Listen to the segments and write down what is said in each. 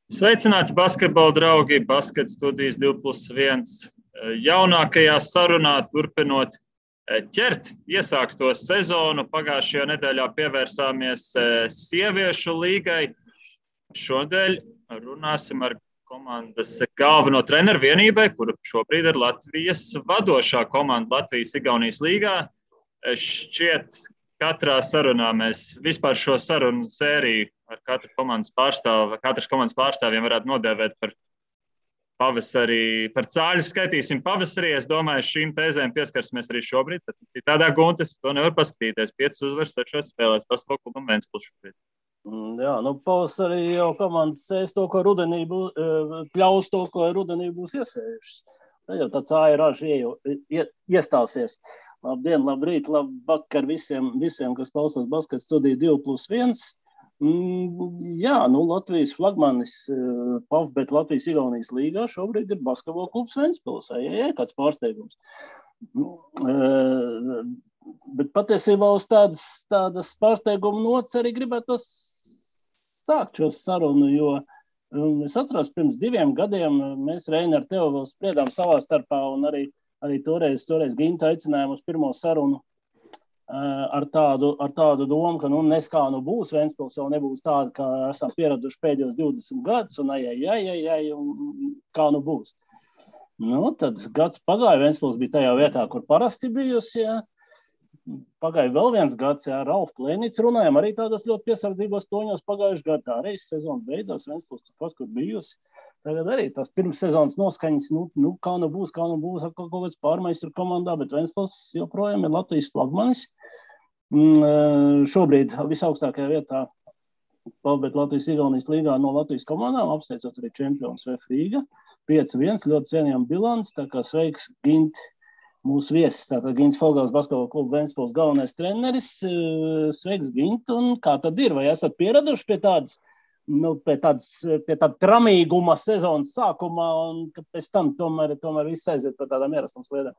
Sveicināti basketbola draugi, Basket studijas 2+1 jaunākajā sarunā, turpinot ķert iesākto sezonu. Pagājušajā nedēļā pievērsāmies sieviešu līgai. Šodien runāsim ar komandas galveno treneru vienībai, kura šobrīd ir Latvijas vadošā komanda Latvijas-Igaunijas līgā. Šķiet, katrā sarunā mēs vispār šo sarunu sēriju ar katras komandas pārstāvjiem varētu nodēvēt par pavasarī, par cāļu skaitīsim pavasarī. Es domāju, šīm tēzēm pieskarsimies arī šobrīd. Tad citādā Guntis to nevar paskatīties. 5 uzvaras 6 spēlēs Basketbola klubam Ventspils šobrīd. Jā, pavasarī jau komandas sēs to, ko rudenī pļaus to, ko rudenī būs iesējušas. Tad jau tā cāja raža iestāsies. Labdien, labrīt, labvakar visiem, kas klausās Basket studiju 2+1. Jā, Latvijas flagmanis PAF, Latvijas-Igaunijas līgā šobrīd ir Basketbola klubs Ventspils. Kāds pārsteigums. Bet patiesībā uz tādas pārsteiguma nots arī gribētu sākt šo sarunu, jo es atceros, pirms 2 gadiem mēs Reini ar tevi vēl spriedām savā starpā un arī toreiz Ginta aicinājām uz pirmo sarunu ar tādu domu, ka nes kā būs, Ventspils jau nebūs tāda, kā esam pieraduši pēdējos 20 gadus, un un kā būs. Tad gads pagāja, Ventspils bija tajā vietā, kur parasti bijusi, jā. Pagāja vēl viens gads, jā, Ralf Klēnīts runājām arī tādos ļoti piesardzīgos toņos pagājuši gadā. Arī sezona beidzās, Ventspils turpat, kur bijusi. Tagad arī tās pirms sezonas noskaņas, kā būs, atkal kaut kāds pārmaiņas tur komandā, bet Ventspils joprojām ir Latvijas flagmanis. Šobrīd visaugstākajā vietā PAF, Latvijas-Igaunijas līgā no Latvijas komandām, apsteidzot arī čempions VF Rīga. 5-1, ļoti cienījama bilants, tā kā sveiks Gint, mūsu viesis, tātad Gints Fogels, Basketbola kluba Ventspils galvenais treneris. Sveiks, Gint, un kā tad ir? Vai esat pieraduši pie tāda tramīguma sezonas sākumā, un ka pēc tam tomēr viss aiziet par tādām ierastām sliedēm?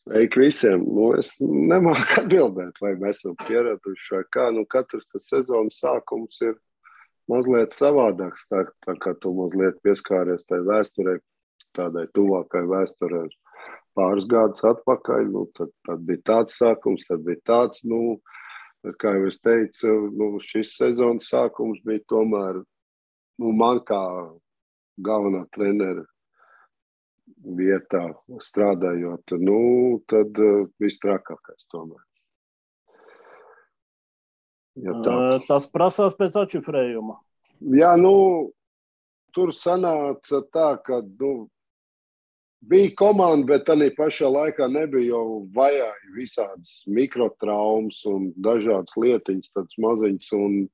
Sveiki visiem! Es nemāku atbildēt, vai mēs esam pieraduši vai kā. Katrs tas sezonas sākums ir mazliet savādāks, tā kā tu mazliet pieskāries tai vēsturei, tādai tuvākai vēsturei pāris gadus atpakaļ. Tad bija tāds sākums, tad bija tāds, kā jau es teicu, šis sezonas sākums bija tomēr, man kā galvenā trenera vietā strādājot, tad viss trakākais tomēr. Ja tā. Tas prasās pēc atšifrējuma. Jā, tur sanāca tā, ka, bija komanda, bet tādā pašā laikā nebija jau vajāji visādas mikrotraumas un dažādas lietiņas, tādas maziņas, un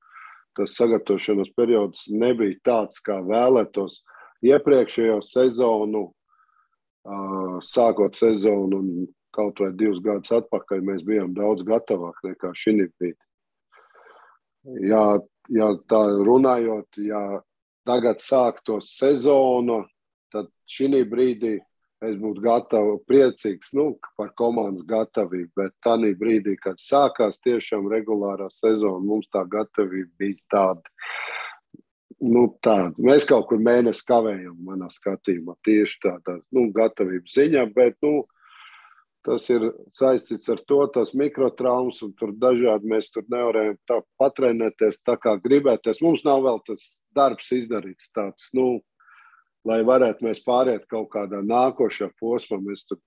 tas sagatavošanās periods nebija tāds, kā vēlētos. Iepriekšējo sezonu, sākot sezonu un kaut vai 2 gadus atpakaļ, mēs bijām daudz gatavāk nekā šī brīdī. Ja tā runājot, ja tagad sāktos sezonu, tad šī brīdī es būtu priecīgs par komandas gatavību, bet tādā brīdī, kad sākās tiešām regulārā sezona, mums tā gatavība bija tāda. Mēs kaut kur mēnesi kavējam manā skatījumā, tieši tādā gatavības ziņā, bet tas ir saistīts ar to, tās mikrotraumas un tur dažādi mēs tur nevarējam tā patrenēties tā kā gribēties. Mums nav vēl tas darbs izdarīts tāds, lai varētu mēs pāriet kaut kādā nākošā posmā. Mēs tur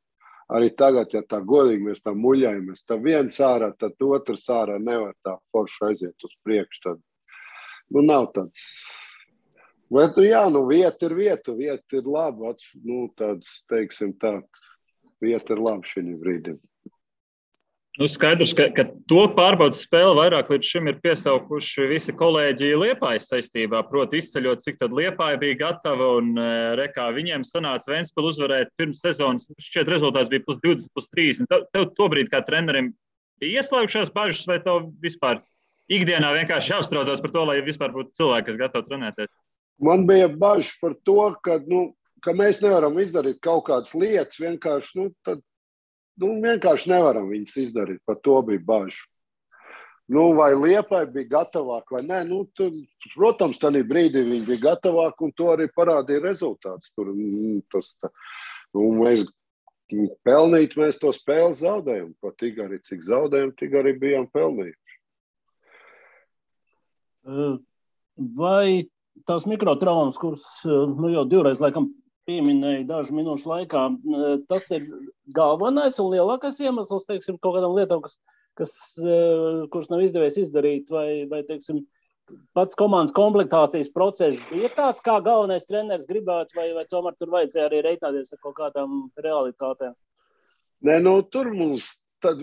arī tagad, ja tā godīgi mēs tā muļajamies, tā viens ārā, tad otrs ārā nevar tā forši aiziet uz priekšu. Tad, nav tāds. Bet, vieta ir laba, tāds, teiksim tā, vieta ir laba šī brīdī. Skaidrs, ka to pārbaudas spēli vairāk līdz šim ir piesaukuši visi kolēģi Liepājas saistībā, proti izceļot, cik tad Liepāja bija gatava un rekā viņiem sanāca Ventspilu uzvarēt pirms sezonas. Šķiet rezultāts bija +20, +30. Tev tobrīd kā trenerim bija ieslēgušās bažas vai tev vispār ikdienā vienkārši jāuztraucās par to, lai vispār būtu cilvēki, kas gatavi trenēties? Man bija bažas par to, ka mēs nevaram izdarīt kaut kādas lietas, vienkārši, vienkārši nevaram viņas izdarīt, par to bija bažas. vai Liepai bija gatavāk vai nē. Protams, tajā brīdī viņi bija gatavāk, un to arī parādīja rezultāts. Mēs pelnīt, mēs to spēli zaudējam. Pat tik arī, cik zaudējam, tik arī bijām pelnījuši. Vai tās mikrotraumas, kuras jau divreiz laikam pieminēja dažu minūšu laikā, tas ir galvenais un lielākais iemesls, teiksim, kaut kādām lietām, kuras nav izdevies izdarīt, vai teiksim, pats komandas komplektācijas process bija tāds, kā galvenais treneris gribētu, vai tomēr tur vajadzēja arī reiķināties ar kaut kādām realitātēm? Nē, tur mums tad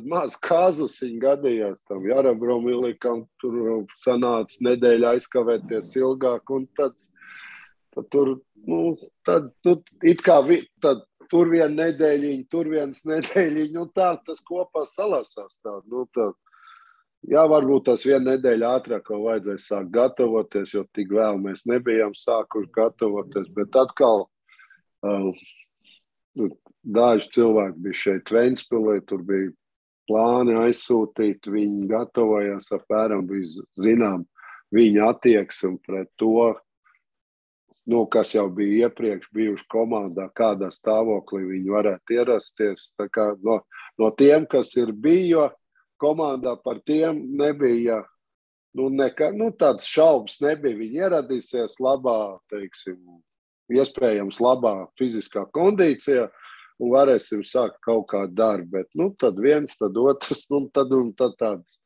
maz kāzusiņi gadījās tam Jarabromīlikam, tur sanāca nedēļa aizkavēties ilgāk, un tad tur, it kā tur viena nedēļiņa, tur viens nedēļiņa, un tā tas kopā salasās tā. Jā, varbūt tas viena nedēļa ātrāk vēl vajadzēja sākt gatavoties, jo tik vēl mēs nebijām sākuši gatavoties, bet atkal daži cilvēki bija šeit Ventspilī, tur bija plāni aizsūtīt, viņi gatavojās apmēram, bija zinām viņa attieksme pret to, kas jau bija iepriekš bijuši komandā, kādā stāvoklī viņi varētu ierasties. Tā kā no tiem, kas ir bija komandā, par tiem nebija, tāds šaubas nebija. Viņi ieradīsies labā, teiksim, iespējams labā fiziskā kondīcijā un varēsim sākt kaut kādu darbu. Bet, tad viens, tad otrs, tad tāds.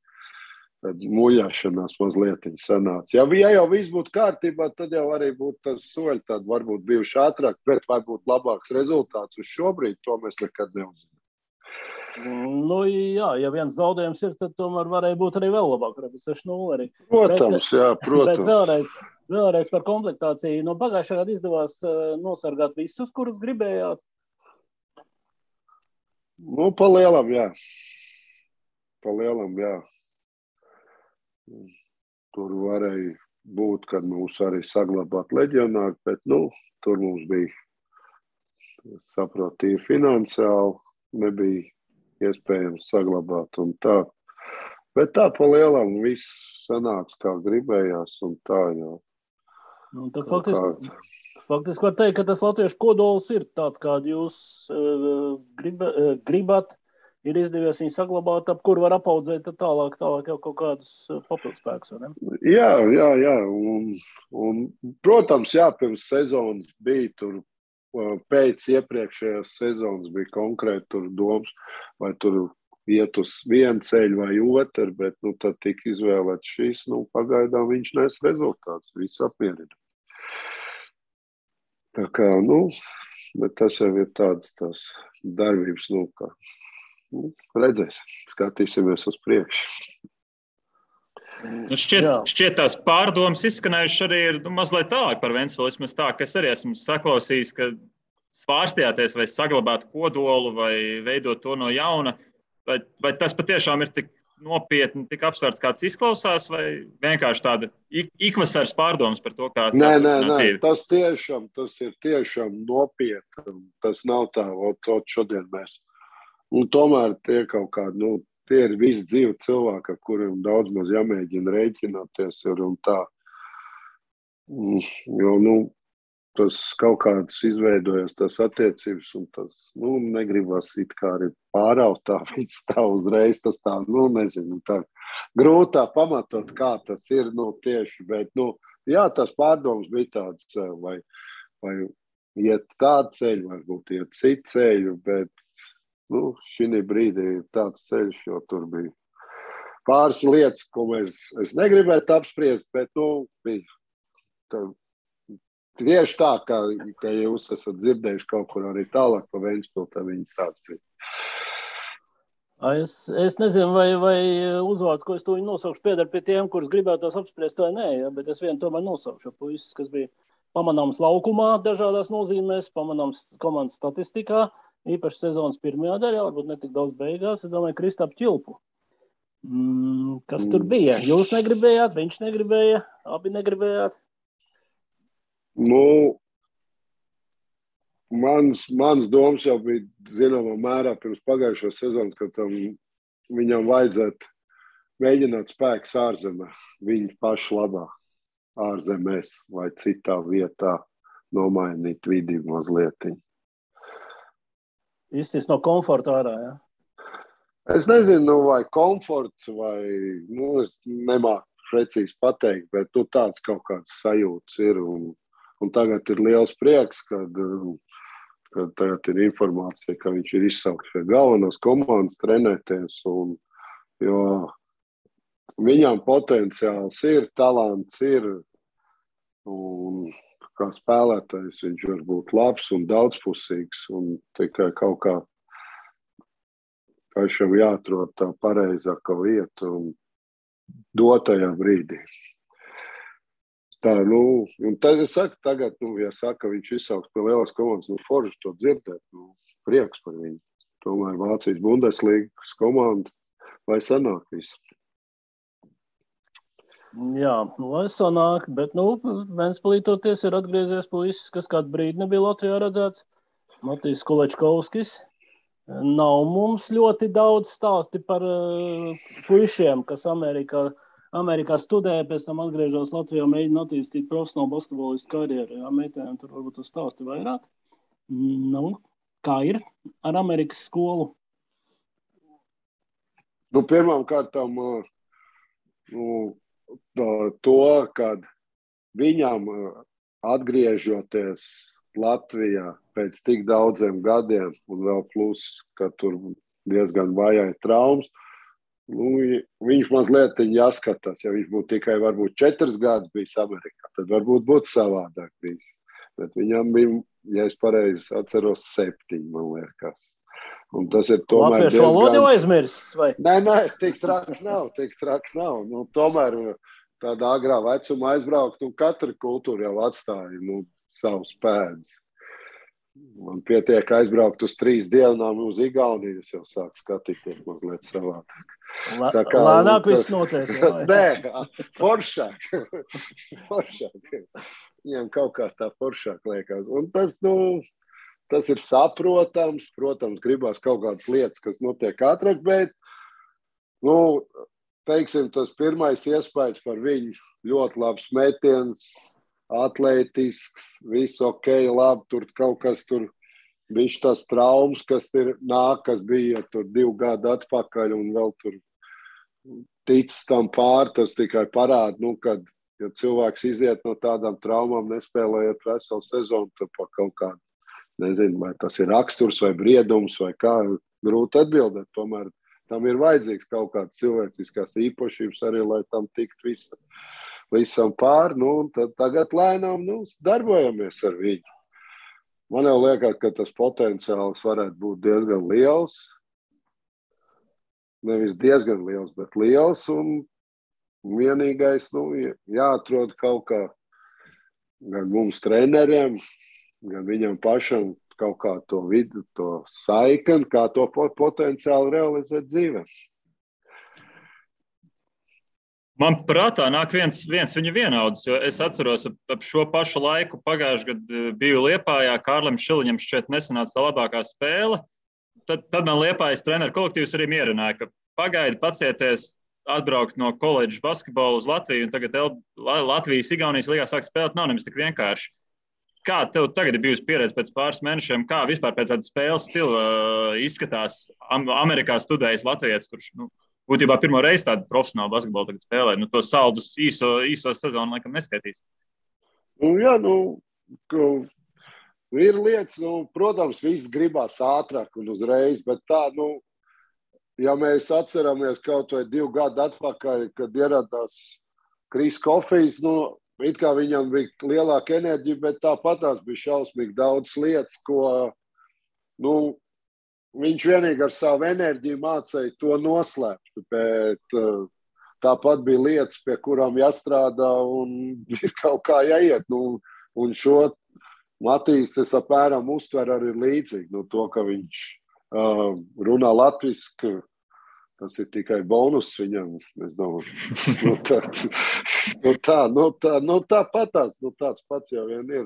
Tad muļāšanās mazliet sanāca. Ja jau viss būtu kārtībā, tad jau arī būtu tas soļi, tad varbūt bijuši ātrāk, bet vai būtu labāks rezultāts uz šobrīd, to mēs nekad neuzinām. Jā, ja viens zaudējums ir, tad tomēr varēja būt arī vēl labāk, varbūt 6-0 arī. Protams, jā, protams. Bet vēlreiz par komplektāciju. No pagājušā gada izdevās nosargāt visus, kurus gribējāt? Pa lielam, jā. Tur varēja būt, kad mums arī saglabāt leģionāri, bet tur mums bija, saprotīja finansiāli, nebija iespējams saglabāt un tā. Bet tā pa lielam viss sanāca, kā gribējās un tā, jā. Tad faktiski var teikt, ka tas latviešu kodols ir tāds, kādu jūs gribat. Ir izdevies viņu saglabāt, ap kur var apaudzēt tālāk jau kaut kādus papildspēkus, vai ne? Jā. Un, protams, pirms sezonas bija tur, pēc iepriekšējās sezonas bija konkrēti tur domas, vai tur iet uz vienu ceļu vai otru, bet tad tika izvēlēts šis, pagaidām viņš nes rezultāts, viss apmierina. Tā kā, bet tas jau ir tādas tās darbības, kā. Redzēsim, skatīsimies uz priekšu. Šķiet tās pārdomas izskanējušas arī ir mazliet tālāk par Ventspili. Vismaz tā, ka es arī esmu saklausījis, ka svārstījāties vai saglabāt kodolu vai veidot to no jauna. Vai tas patiešām ir tik nopietni, tik apsvērts, kāds izklausās, vai vienkārši tāda ikvasaras pārdomas par to, kā Nē, tas ir tiešām nopietni. Tas nav tā, šodien mēs. Un tomēr tie kaut kādi, tie ir visi dzīvi cilvēki, ar kuriem daudz maz jāmēģina rēķināties ir un tā. Jo, tas kaut kāds izveidojas tas attiecības un tas, negribas it kā arī pāraut tā, viņš stāv uzreiz, tas tā, nezinu, tā grūtā pamatot, kā tas ir, tieši, bet, jā, tas pārdoms bija tāds, vai iet tādu ceļu, varbūt iet citu ceļu, bet, šī brīdī ir tāds ceļš, jo tur bija pāris lietas, ko es negribētu apspriest, bet, bija tieši tā, ka jūs esat dzirdējuši kaut kur arī tālāk pa Ventspili, tā viņas tāds bija. Es nezinu, vai uzvārds, ko es to nosaukšu, piedar pie tiem, kurus gribētos apspriest vai nē, bet es vienu tomēr nosaukšu puisis, kas bija pamanāms laukumā dažādās nozīmēs, pamanāms komandas statistikā, īpaši sezonas pirmajā daļā, varbūt ne tik daudz beigās, es domāju, Kristapu Ķilpu. Kas tur bija? Jūs negribējāt, viņš negribēja, abi negribējāt? Mans domas jau bija zināmā mērā pirms pagājušo sezonu, ka viņam vajadzētu mēģināt spēkus ārzemē, viņu pašu labā, ārzemēs vai citā vietā nomainīt vidi mazliet. Izsist no komforta ārā, jā? Es nezinu, vai komforts, vai, es nemāku precīzi pateikt, bet tāds kaut kāds sajūts ir. Un tagad ir liels prieks, kad tagad ir informācija, ka viņš ir izsaukts pie galvenās komandas trenēties. Jo viņam potenciāls ir, talants ir. Un kā spēlētājs viņš var būt labs un daudzpusīgs. Un tikai kaut kā pašam jāatrod tā pareizākā vieta un dotajā brīdī. Tā, un tad es saku, tagad, ja saka, viņš izsauks pie lielās komandas, forši to dzirdēt, prieks par viņu. Tomēr Vācijas Bundeslīgas komanda, lai sanāk visu. Jā, lai sanāk, bet, Ventspilī ir atgriezies puisis, kas kādu brīdi nebija Latvijā redzēts. Matīs Kulečkovskis. Nav mums ļoti daudz stāsti par puišiem, kas Amerikā studē, pēc tam atgriežas Latvijā, mēģina attīstīt profesionālu basketbolistu karjeru. Jā, meitēm tur varbūt uz stāsti vairāk. Kā ir ar Amerikas skolu? Pirmām kārtām to, kad viņam atgriežoties Latvijā pēc tik daudziem gadiem, un vēl plus, ka tur diezgan vajāja traumas, viņš mazliet jāskatās. Ja viņš būtu tikai varbūt 4 gadus bijis Amerikā, tad varbūt būtu savādāk bijis. Bet viņam bija, ja es pareizi atceros, 7, man liekas. Un tas ir tomēr Latviešu valodu jau aizmirsis, vai? Nē, tik traki nav. Tomēr tādā agrā vecumā aizbraukt, un katra kultūra jau atstāja, savus pēdas. Man pietiek aizbraukt uz 3 dienām uz Igauniju, es jau sāku skatīties mazliet savādāk. Lēnāk viss notiek. Nē, foršāk. Viņiem kaut kā tā foršāk liekas. Un tas ir saprotams. Protams, gribās kaut kādas lietas, kas notiek ātrāk, bet, teiksim, tas pirmais iespējas par viņu ļoti labs metiens, atletisks, viss ok, labi, tur kaut kas tur, viņš tas traumas, kas bija tur 2 gadu atpakaļ un vēl tur ticis tam tas tikai parāda, kad, ja cilvēks iziet no tādām traumām, nespēlējot veselu sezonu, tad pa kaut kādu, nezinu, vai tas ir raksturs vai briedums vai kā, grūti atbildēt, tomēr tam ir vajadzīgs kaut kāds cilvēciskās īpašības arī, lai tam tikt visam pār, tad tagad lēnām darbojamies ar viņu. Man jau liekas, ka tas potenciāls varētu būt diezgan liels. Nevis diezgan liels, bet liels. Un vienīgais, jāatrod kaut kā gan mums treneriem, gan viņam pašam kaut kā to vidu, to saikni, kā to potenciāli realizēt dzīvē. Man prātā nāk viens viņa vienaudzis, jo es atceros ap šo pašu laiku pagājušajā gadā biju Liepājā, Kārlim Šiliņam šķiet nesanāca tā labākā spēle. Tad man Liepājas treneru kolektīvs arī mierināja, ka pagaidi pacieties atbraukt no koledžas basketbola uz Latviju, un tagad Latvijas Igaunijas līgā sāk spēlēt, nav nemaz tik vienkārši. Kā tev tagad ir bijusi pieredze pēc pāris mēnešiem, kā vispār pēc tāda spēles stila izskatās Amerikā studējis latvietis, kurš, būtībā pirmo reizi tādu profesionālu basketbolu tagad spēlē. To saldus īso sezonu laikam neskaitīs. Jā, ir lietas, protams, viss gribās ātrāk un uzreiz, bet tā, ja mēs atceramies kaut vai 2 gadu atpakaļ, kad ieradās Kris Kofijs, it kā viņam bija lielāka enerģija, bet tāpatās bija šausmīgi daudz lietas, ko, viņš vienīgi ar savu enerģiju mācīja to noslēpt, bet tāpat bija lietas, pie kurām jāstrādā un kaut kā jāiet. Un šo Matīs es apmēram uztver arī līdzīgi. To, ka viņš runā latviski, tas ir tikai bonus viņam, es domāju. Tāpatās, tāds pats jau vien ir.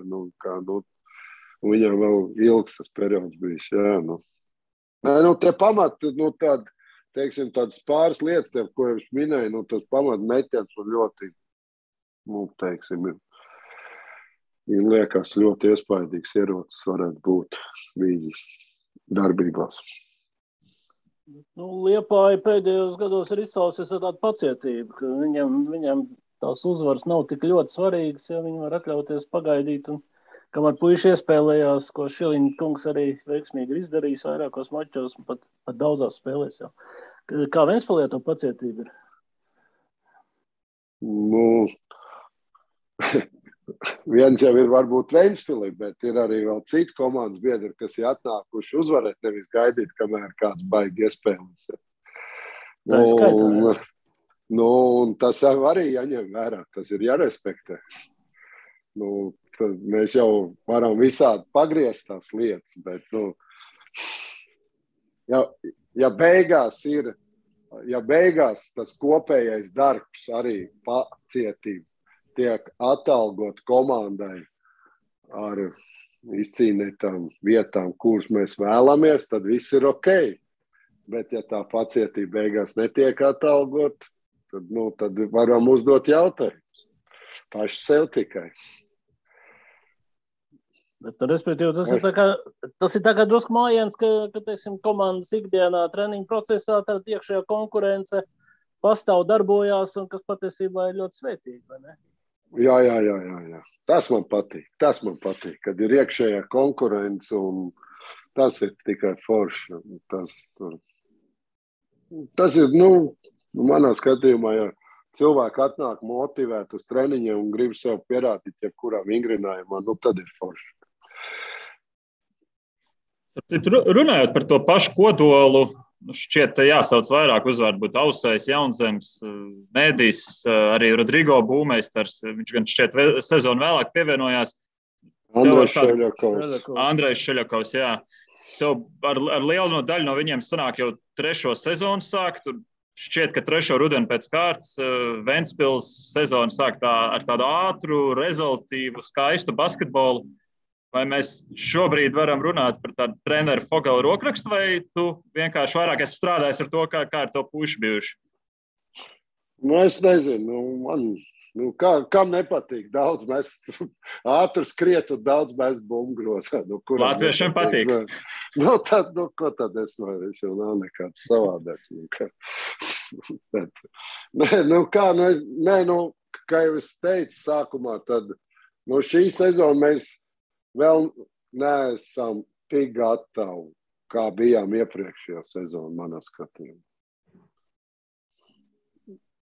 Viņam vēl ilgs tas periods bijis, jā. Tie pamati, teiksim, tādas pāris lietas, tev, ko es minēju, nu, tas pamatmetiens man ļoti, nu, teiksim, ir liekas ļoti iespaidīgs ierocis varētu būt viņa darbībās. Nu, Liepāja pēdējos gados ir izcēlusies ar tādu pacietību, ka viņam tās uzvaras nav tik ļoti svarīgas, ja viņi var atļauties pagaidīt. Un, kamēr puiši iespēlējās, ko Šiliņa kungs arī veiksmīgi ir izdarījis vairākos mačos un pat daudzās spēlēs jau. Kā Ventspilī to pacietība ir? Nu, viens jau ir varbūt Ventspilī, bet ir arī vēl citi komandas biedri, kas ir atnākuši uzvarēt, nevis gaidīt, kamēr kāds baigi iespēlēs. Tā ir skaitā, jā. Nu, un tas arī jāņem vērā, tas ir jārespektē. Nu, mēs jau varam visādi pagriezt tās lietas, bet, nu, ja beigās tas kopējais darbs arī pacietība tiek atalgot komandai ar izcīnītām vietām, kuras mēs vēlamies, tad viss ir ok. Bet, ja tā pacietība beigās netiek atalgot, tad varam uzdot jautājumus. Paši sev tikai. Bet, respektīvi, tas ir tā kā drusku mājiens, ka teiksim, komandas ikdienā treniņu procesā tad iekšējā konkurence pastāv, darbojās un kas patiesībā ir ļoti svētīgi, vai ne? Jā. Tas man patīk, kad ir iekšējā konkurence un tas ir tikai forši. Tas ir, manā skatījumā, ja cilvēki atnāk motivēt uz treniņiem un grib sev pierādīt, jebkurā vingrinājumā, tad ir forši. Runājot par to pašu kodolu, šķiet, jāsauc vairāk uzvārdu, būtu Ausējs, Jaunzems, Mēdīs, arī Rodrigo Būmeistars. Viņš gan šķiet sezonu vēlāk pievienojās. Andrejs Šeļakovs, jā. Tev ar lielu daļu no viņiem sanāk jau 3. sezonu sākt. Šķiet, ka 3. rudeni pēc kārtas Ventspils sezonu sāk ar tādu ātru, rezultīvu, skaistu basketbolu. Vai mēs šobrīd varam runāt par tādu treneru Fogela rokrakstu, vai tu vienkārši vairāk esi strādājis ar to, kā ar to puiši bijuši? Es nezinu. Kam nepatīk? Daudz mēs ātri skriet un daudz mēs bumbgrozā. Latviešiem patīk. Ko tad es viņš jau nav nekāds savādāks. Kā jau es teicu sākumā, tad šī sezona mēs vēl neesam tik gatavi, kā bijām iepriekšējā sezona, manā skatījumā.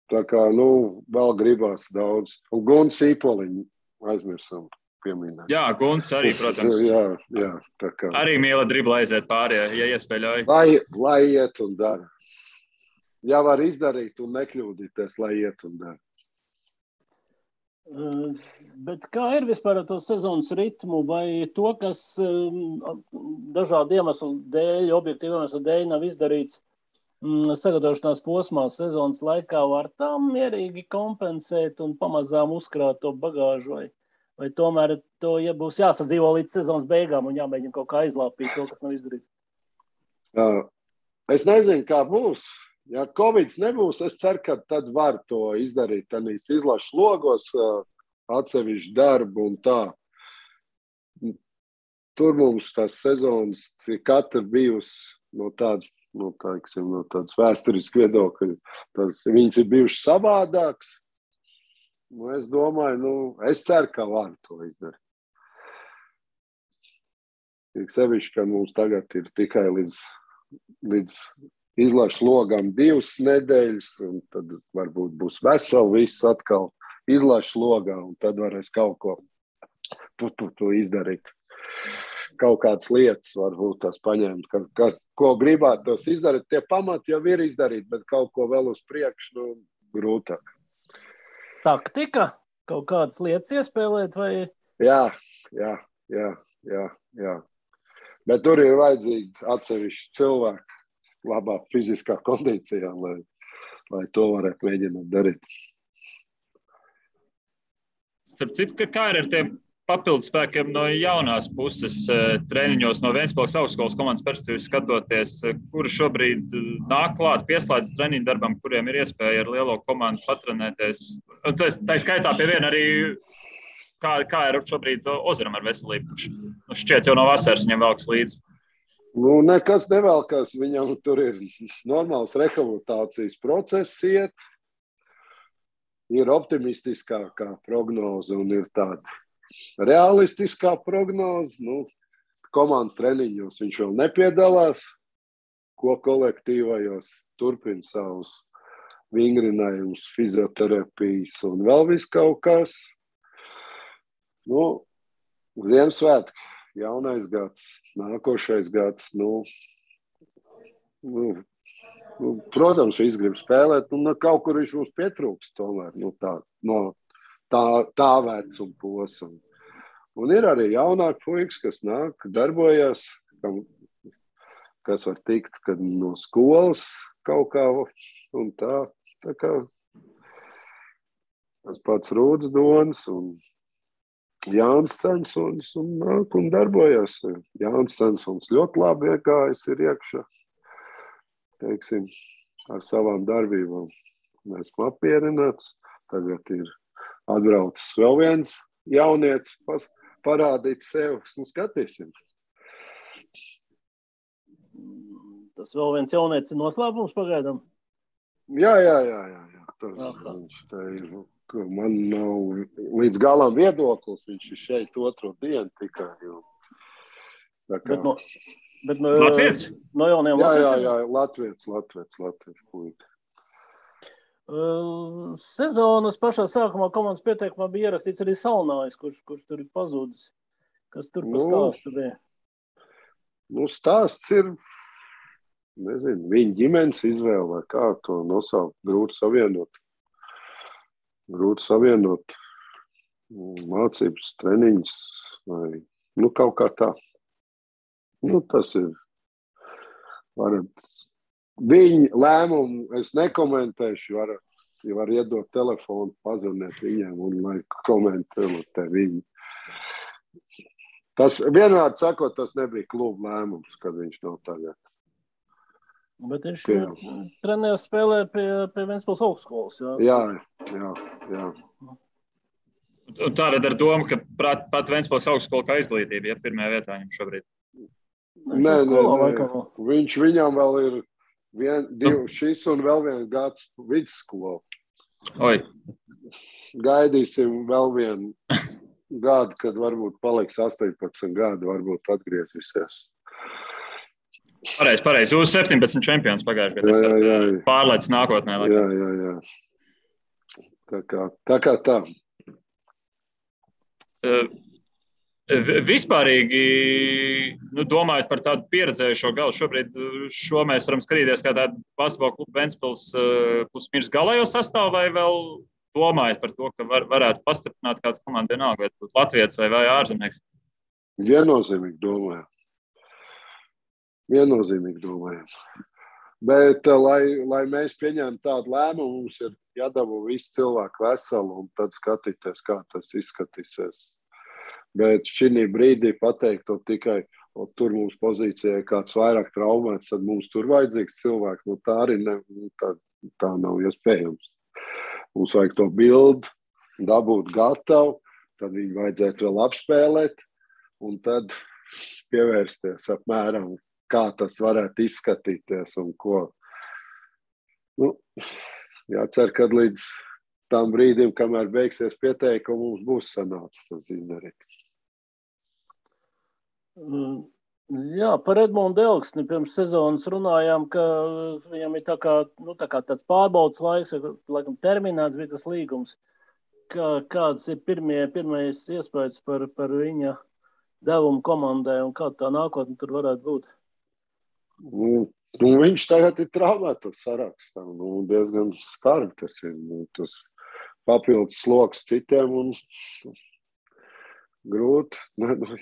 Tā kā, vēl gribās daudz. Un Gunts Īpoliņu aizmirsam pieminēt. Jā, Gunts arī, protams. Jā, tā kā. Arī mīla dribla aiziet pāri, ja iespēļauj. Lai iet un dara. Ja var izdarīt un nekļūdīties, lai iet un dara. Bet kā ir vispār ar to sezonas ritmu, vai to, kas dažādu iemeslu dēļ, objektīvu iemeslu dēļ nav izdarīts sagatavošanās posmā sezonas laikā, var tam mierīgi kompensēt un pamazām uzkrāt to bagāžu, vai tomēr to būs jāsadzīvo līdz sezonas beigām un jāmēģina kaut kā aizlāpīt to, kas nav izdarīts? Es nezinu, kā būs. Ja Covid nebūs, es ceru, ka tad var to izdarīt tādīs izlašu logos, atsevišķu darbu un tā. Tur mums tās sezonas katra bijusi no tādas vēsturiskas viedokļa. Viņas ir bijušas savādākas. Es domāju, es ceru, ka var to izdarīt. Sevišķi, ka mums tagad ir tikai līdz izlašu logām 2 nedēļas, un tad varbūt būs veseli viss atkal izlašu logā, un tad varēs kaut ko to izdarīt. Kaut kādas lietas varbūt tās paņemt, ko gribētu tos izdarīt. Tie pamati jau ir izdarīt, bet kaut ko vēl uz priekšu, grūtāk. Taktika? Kaut kādas lietas iespēlēt, vai? Jā. Bet tur ir vajadzīgi atsevišķi cilvēki labā fiziskā kondīcijā, lai to varētu mēģināt darīt. Starp citu, kā ir ar tiem papildus spēkiem no jaunās puses treniņos no Ventspils augstskolas komandas perspektīvas skatoties, kuri šobrīd nāk klāt, pieslēdz treniņu darbam, kuriem ir iespēja ar lielo komandu patrenēties. Tā skaitā pie viena arī, kā ir šobrīd Ozaram ar veselību, kurš šķiet jau no vasaras viņam velks līdzi. Nekas nevelkās, viņam tur ir normāls rehabilitācijas process iet, ir optimistiskākā prognoze un ir tāda realistiskā prognoze. Komandas treniņos viņš vēl nepiedalās, ko kolektīvajos turpina savus vingrinājumus, fizioterapijas un vēl viss kaut kas. Ziemassvētki, jaunais gads, nākošais gads. Protams, viņš grib spēlēt, kaut kur viņš mums pietrūks tomēr, tā vecuma posma. Un ir arī jaunāki puikas, kas nāk, darbojas, kas var tikt no skolas kaut kā un tā. Tā kā tas pats Rūds Donis un Jānis Censons un nāk un darbojas. Jānis Censons ļoti labi iegājis ir iekšā, teiksim, ar savām darbībām. Mēs esam apmierināts. Tagad ir atbraucis vēl viens jaunietis, parādīt sev, skatīsim. Tas vēl viens jaunietis ir noslēpums pagaidām? Jā. Viņš tā ir. Man nav līdz galam viedoklis, viņš ir šeit otro dienu tikai. Bet no Latvijas? No jauniem Latvijas? Jā, Latvijas puika. Sezonas pašā sākumā komandas pieteikumā bija ierakstīts arī Salnājs, kurš tur ir pazudis. Kas tur pa stāstu bija? Stāsts ir, nezinu, viņa ģimenes izvēle vai kā to nosaukt, grūti savienot mācības, treniņus vai kaut kā tā. Tas ir viņa lēmumu, es nekomentēšu, var iedot telefonu, pazvanīt viņiem un lai komentē viņi. Tas vienmēr sakot, tas nebija kluba lēmums, kad viņš nav tagad. Bet viņš trenējas spēlē pie Ventspils augstskolas, jā. Un tātad ar domu, ka pat Ventspils augstskola kā izglītība, pirmajā vietā viņam šobrīd. Nē. Viņš viņam vēl ir šis un vēl viens gads vidusskola. Oi. Gaidīsim vēl vienu gadu, kad varbūt paliks 18 gadi, varbūt atgriezīsies. Pareizi. Jūs 17 čempions pagājuši gadā. Pārlaicis nākotnē. Jā. Tā kā tā. Vispārīgi, domājot par tādu pieredzējušo galu, šobrīd mēs varam skatīties kā tādu basketbola klubu Ventspils plus-mīnus galējo sastāvu, vai vēl domājat par to, ka varētu pastiprināt kāds komanda vienalga, vai būtu Latvijas vai ārzemnieks? Viennozīmīgi domājam. Bet, lai mēs pieņemtu tādu lēmumu, mums ir jādabū visi cilvēki veseli un tad skatīties, kā tas izskatīsies. Bet šī brīdī pateikt to tikai, tur mums pozīcijai kāds vairāk traumēts, tad mums tur vajadzīgs cilvēks. Tā arī tā nav iespējams. Mums vajag to bildi, dabūt gatavu, tad viņu vajadzētu vēl apspēlēt un tad pievērsties apmēram, kā tas varētu izskatīties un ko. Jācer, kad līdz tam brīdim, kamēr beigsies pieteikumi, mums būs sanācis tas izdarīt. Jā, par Edmundu Elksni pirms sezonas runājām, ka viņam ir tā kā tāds pārbaudas laiks, laikam terminēts bija tas līgums. Kāds ir pirmais iespējas par viņa devumu komandai un kā tā nākotne tur varētu būt? Viņš tagad ir traumētos sarakstā. Diezgan skarbi tas ir. Tas papildus sloks citiem un grūti.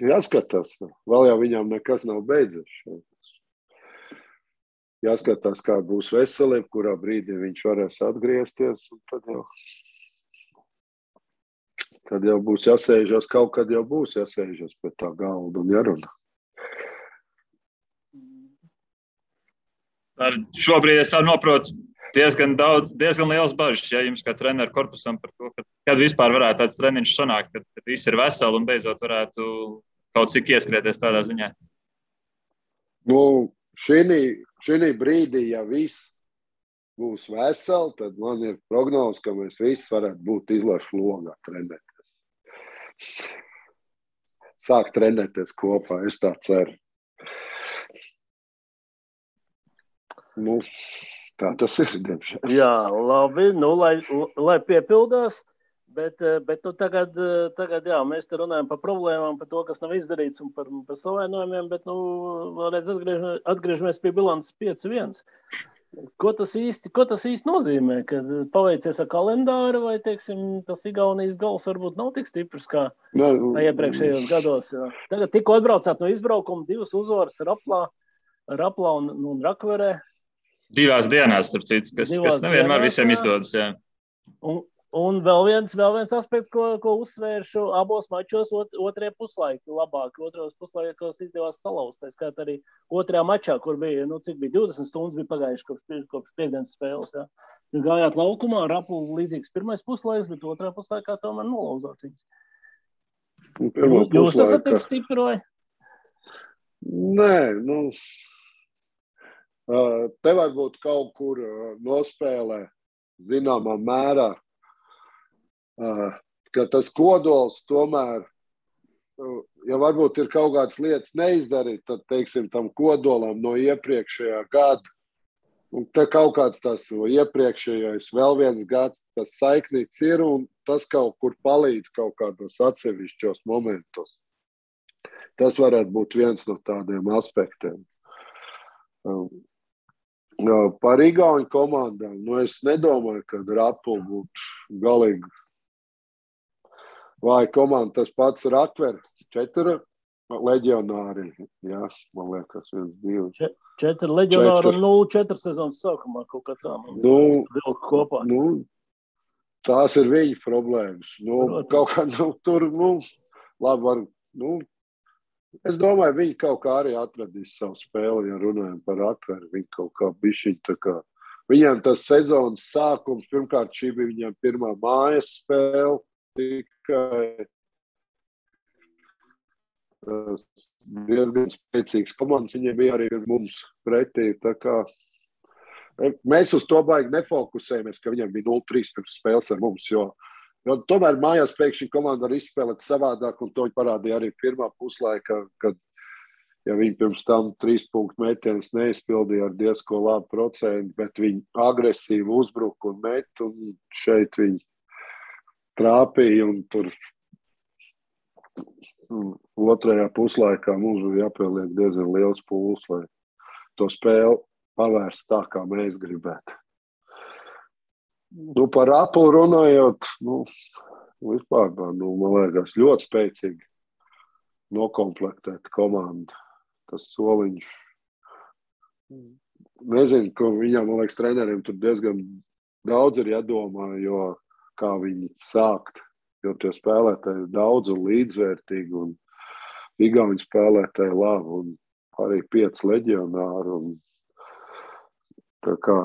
Jāskatās. Vēl jau viņam nekas nav beidzies. Jāskatās, kā būs veselība, kurā brīdī viņš varēs atgriezties. Un tad jau Tad jau būs jāsēžas, kaut kad jau būs jāsēžas pie tā galda un jārunā. Šobrīd es tā noprotu diezgan liels bažas, ja jums kā treneru korpusam par to, kad vispār varētu tāds treniņš sanākt, kad visi ir veseli un beidzot varētu kaut cik ieskrieties tādā ziņā. Nu, šī brīdī, ja viss būs veseli, tad man ir prognoze, ka mēs visi varētu būt izlašu logā trenēties. Sāk trenēties kopā, es tā ceru. Nu, tā tas ir, diemžēl. Jā, labi, nu, lai piepildās, bet nu, tagad jā, mēs te runājam par problēmām, par to, kas nav izdarīts un par savainojumiem, bet, nu, vēlreiz atgriežamies pie bilances 5-1. Ko tas īsti nozīmē, kad paveicies ar kalendāru vai, teiksim, tas Igaunijas gals varbūt nav tik stiprs kā iepriekšējos gados? Jā. Tagad tikko atbraucāt no izbraukuma, 2 uzvaras Raplā un Rakverē. 2 dienās, starp citu, kas nevienmēr visiem izdodas. Jā. Un vēl viens aspekts, ko uzsvēršu abos mačos, otrajā puslaikā labāk. Otrajos puslaikos izdevās salauzt. Tā skait arī otrajā mačā, kur bija, cik bija 20 stundas bija pagājuši kopš piekdienas spēles. Jā. Jūs gājāt laukumā, Raplu līdzīgs pirmais puslaiks, bet otrajā puslaikā tomēr nolauzāt viņus. Jūs esat tik stipri vai? Nē, te vajag būt kaut kur nospēlē zināmā mērā, ka tas kodols tomēr, ja varbūt ir kaut kādas lietas neizdarīt, tad, teiksim, tam kodolam no iepriekšējā gada, un te kaut kāds tas iepriekšējais vēl viens gads, tas saiknīts ir, un tas kaut kur palīdz kaut kādos atsevišķos momentos. Tas varētu būt viens no tādiem aspektiem. Par Igauņu komandām, es nedomāju, ka Rapla būtu galīgi vai komanda, tas pats Rakver, 4 leģionāri, jā, man liekas, 1, 2. 4 leģionāri un 0-4 sezonas sākumā kaut kā tā. Kopā. Tās ir viņa problēmas. Kaut kā, tur, labi var, es domāju, viņi kaut kā arī atradīs savu spēli, ja runājam par Rakveru. Viņi kaut kā bišķiņ tā kā. Viņiem tas sezonas sākums, pirmkārt, šī bija viņiem pirmā mājas spēle, tikai diezgan spēcīgs komandas. Viņiem bija arī mums pretī, tā kā mēs uz to baigi nefokusējamies, ka viņiem bija 0-3 pirms spēles ar mums, jo tomēr mājās pēkšņi komanda var izspēlēt savādāk, un to parādīja arī pirmā puslaika, kad ja viņi pirms tam 3 punktu metienus neizpildīja ar diezko labu procentu, bet viņi agresīvi uzbruka un met, un šeit viņi trāpīja, un tur otrajā puslaikā mums bija jāpieliek diezgan liels pūls, lai to spēli pavērst tā, kā mēs gribētu. Par Raplu runājot, vispār, man liekas, ļoti spēcīgi nokomplektēta komanda. Tas soliņš, nezinu, ka viņam, man liekas, treneriem tur diezgan daudz ir jādomā, jo kā viņi sākt, jo tie spēlētāji ir daudz un līdzvērtīgi, un Igauņu spēlētāji labi, un arī 5 leģionāri, un tā kā,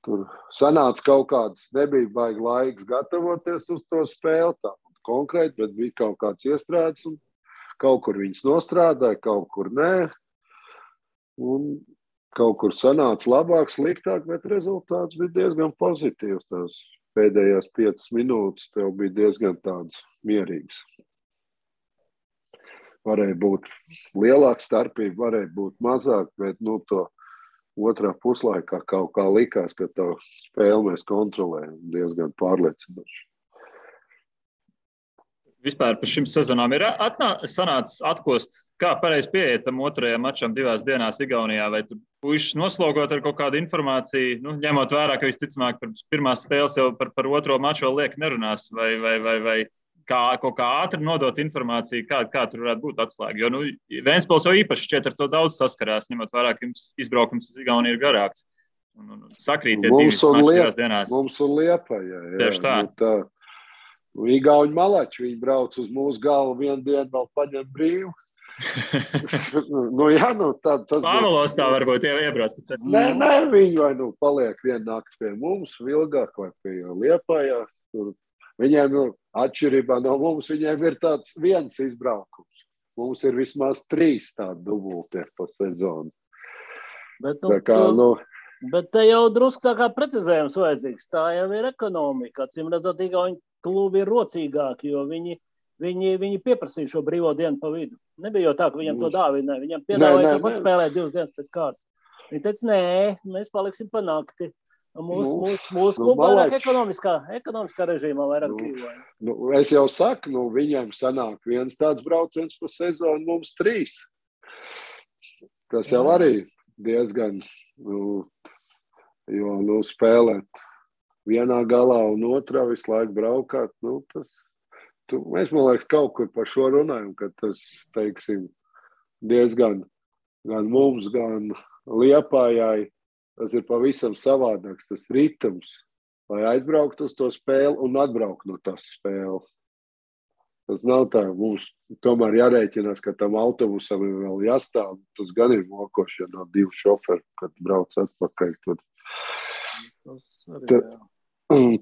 tur sanāca kaut kāds, nebija baigi laiks gatavoties uz to spēli, tā konkrēti, bet bija kaut kāds iestrādes, un kaut kur viņas nostrādāja, kaut kur nē, un kaut kur sanāca labāk, sliktāk, bet rezultāts bija diezgan pozitīvs. Tās pēdējās 5 minūtes tev bija diezgan tāds mierīgs. Varēja būt lielāka starpība, varēja būt mazāk, bet to otrā puslaikā kaut kā likās, ka to spēli mēs kontrolējam diezgan pārliecinoši. Vispār par šim sezonām ir sanācis atkost, kā pareizi pieiet tam otrajam mačam 2 dienās Igaunijā, vai tu puišus noslogot ar kaut kādu informāciju, ņemot vērā, ka visticamāk par pirmās spēles jau par otro maču vēl liek nerunās, vai kā kaut kā ātri nodot informāciju, kā tur varētu būt atslēga. Jo Ventspils jau īpaši šķiet ar to daudz saskarās, ņemot vērā, ka jums izbraukums uz Igauniju ir garāks. un sakrīt tie divas mačas divās dienās. Mums un Liepaja, jā. Tieši tā. Igauņu malači, viņi brauc uz mūsu galvu vienu dienu, vēl paņem brīvu. Tas Pāvilos tā varbūt iebrauc. Nē, viņi vai paliek vienu nakti pie mums, Vilgāk vai pie Liepājā. Viņiem, atšķirībā no mums, viņiem ir tāds viens izbraukums. Mums ir vismaz 3 tādi dubultie pa sezonu. Bet te jau drusku tā kā precizējums vajadzīgs. Tā jau ir ekonomika. Acīm redzot, Igauņu klubi ir rocīgāki, jo viņi pieprasīja šo brīvo dienu pa vidu. Nebija jau tā, ka viņam to dāvināja. Viņam piedāvāja tāpat spēlēt 2 dienas pēc kārtas. Viņi teica, nē, mēs paliksim pa nakti. Mūsu kluba vairāk ekonomiskā režīmā vairāk dzīvoja. Es jau saku, viņiem sanāk viens tāds brauciens pa sezonu, mums 3. Tas jau arī diezgan, jo spēlēt vienā galā un otrā visu laiku braukāt, mēs, man liekas, kaut kur par šo runājam, ka tas, teiksim, diezgan gan mums, gan Liepājai, tas ir pavisam savādāks, tas ritms, lai aizbraukt uz to spēli un atbraukt no tās spēles. Tas nav tā, mums tomēr jārēķinās, ka tam autobusam ir vēl jāstāv, tas gan ir mokoši, ja nav 2 šoferi, kad brauc atpakaļ.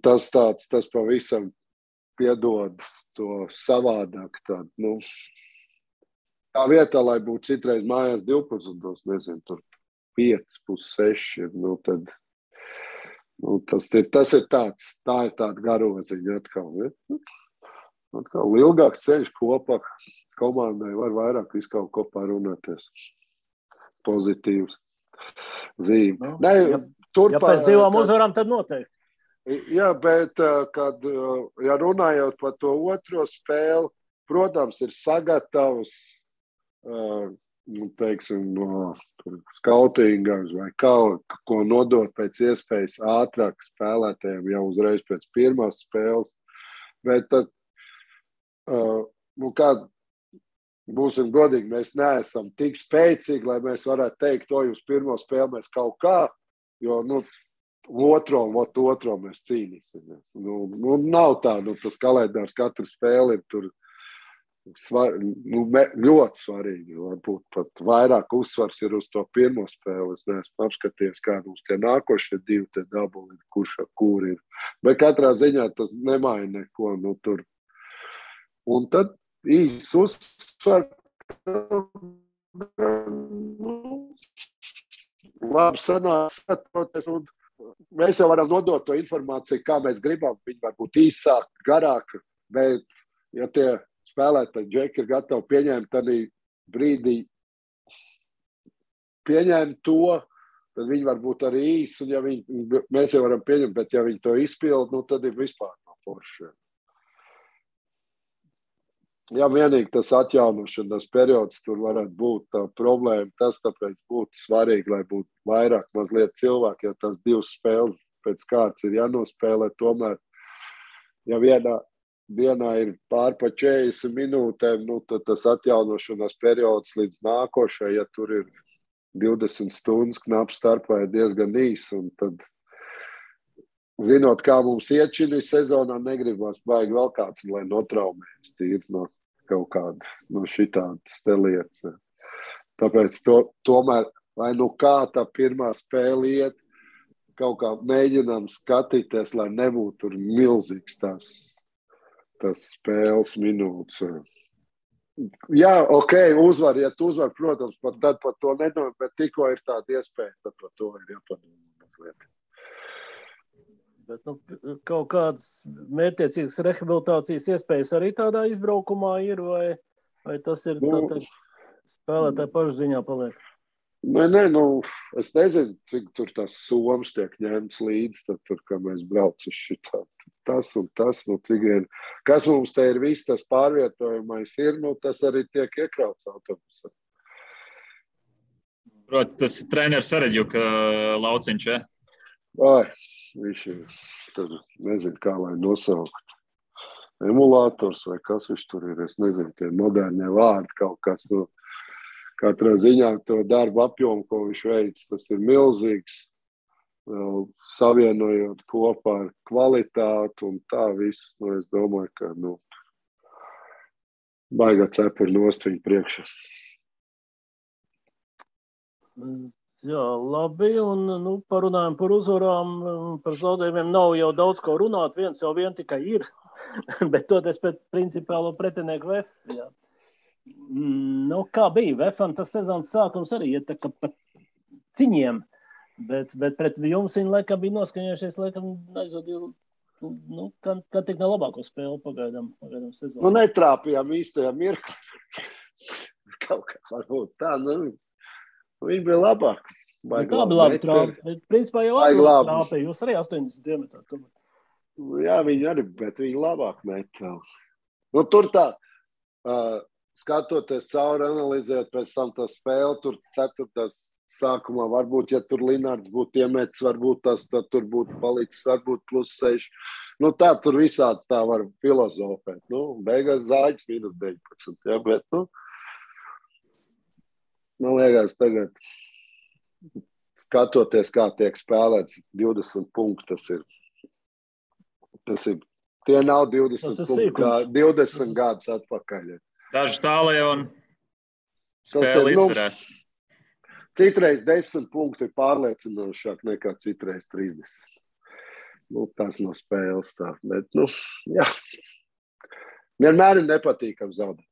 Tas pavisam piedod to savādāk tādu, tā vietā, lai būtu citreiz mājās 12, nezinu, tur 5, 6, tad tas ir tāds, tā ir tāda garoziņa atkal. Atkal ilgāks ceļš kopā komandai var vairāk visu kaut ko parunāties. Pozitīvs zīme. Ja pēc 2 uzvarām, tad noteikti. Jā, bet, ja runājot par to otro spēli, protams, ir sagatavs, teiksim, no skautinga vai ko nodot pēc iespējas ātrāk spēlētājiem jau uzreiz pēc pirmās spēles. Bet tad, būsim godīgi, mēs neesam tik spēcīgi, lai mēs varētu teikt, to uz pirmo spēli mēs kaut kā, jo, otro mēs cīnīsimies. Nav tā, tas kalendārs katru spēli ir tur ļoti svarīgi. Varbūt pat vairāk uzsvars ir uz to pirmo spēli. Es neesmu apskatījies, kādi mums tie nākošie 2 te dabuli, kur ir. Bet katrā ziņā tas nemaina neko. Tur. Un tad īsts uzsvars. Labi sanāks. Mēs jau varam nodot to informāciju, kā mēs gribam. Viņi var būt īsāk, garāk, bet ja tie spēlētāji džeki ir gatavi pieņemt tādā brīdī, pieņemt to, tad viņi var būt arī īsi, un ja mēs jau varam pieņemt, bet ja viņi to izpild, tad ir vispār no foršiem. Ja vienīgi tas atjaunošanas periods tur varētu būt tā problēma, tas tāpēc būtu svarīgi, lai būtu vairāk mazliet cilvēki, ja tas 2 spēles pēc kārtas ir jānospēlē, tomēr, ja vienā ir pār pa 40 minūtēm, tad tas atjaunošanas periods līdz nākošai, ja tur ir 20 stundas knap starpā, ir diezgan īs, un tad zinot, kā mums iet šī sezonā, negribas baigi vēl kāds, lai notraumējas tīri no kaut kāda, no šitādas te lietas. Tāpēc tomēr, lai kā tā pirmā spēle iet, kaut kā mēģinām skatīties, lai nebūtu tur milzīgs tas spēles minūtes. Jā, uzvar, ja tu uzvar, protams, tad par to nedomā, bet tikko ir tāda iespēja, tad par to ir jāpadomā mazliet. Bet kaut kādas mērķtiecīgas rehabilitācijas iespējas arī tādā izbraukumā ir, vai tas ir spēlētāji pašu ziņā paliek? Nē, es nezinu, cik tur tās somas tiek ņemts līdz, tad tur, kā mēs brauc uz šitā, tas un tas, cik vien, kas mums te ir viss tas pārvietojumais ir, tas arī tiek iekrauts autobusā. Proti, tas treneris Sareģuka lauciņš, ja? Viņš ir, tad nezinu, kā lai nosaukt. Emulators vai kas viņš tur ir, es nezinu, tie modernie vārdi kaut kas. Katrā ziņā to darbu apjomu, ko viņš veic, tas ir milzīgs. savienojot kopā ar kvalitāti un tā viss, es domāju, ka, baigā cepuri nost viņu priekšā. Jā, labi, un parunājam par uzvarām, par zaudējumiem nav jau daudz ko runāt, viens jau vien tikai ir, bet toties pēc principālo pretinieku VF. Jā. Kā bija? VFam tas sezonas sākums arī iet tā kā pa ciņiem, bet pret jums viņi laikam bija noskaņojušies, aizvadīja, kā tik nav labāko spēli pagaidām sezonu. Netrāpījām īstajā mirklī. Kaut kā varbūt tā, viņi bija labāk. Tā bija labi trāpa, bet principā jau trāpīja, jūs arī 80 diametrā. Jā, viņi arī, bet viņi labāk met. Tur tā, skatoties cauri, analizējot pēc tam tā spēle, tur 4. sākumā, varbūt, ja tur Linards būtu iemetis, varbūt tad tur būtu palicis, varbūt +6. Tā tur visāds tā var filozofēt. Beigās Zāģis -19, jā, bet, man liekas, tagad, skatoties, kā tiek spēlēts 20 punkti, tas ir tie nav 20 punkti, 20 gadus atpakaļ. Daži tālē un spēle izvarēt. Citreiz 10 punkti ir pārliecinošāk nekā citreiz 30. Tas no spēles tā, bet, jā. Vienmēr ir nepatīkam zaudēt.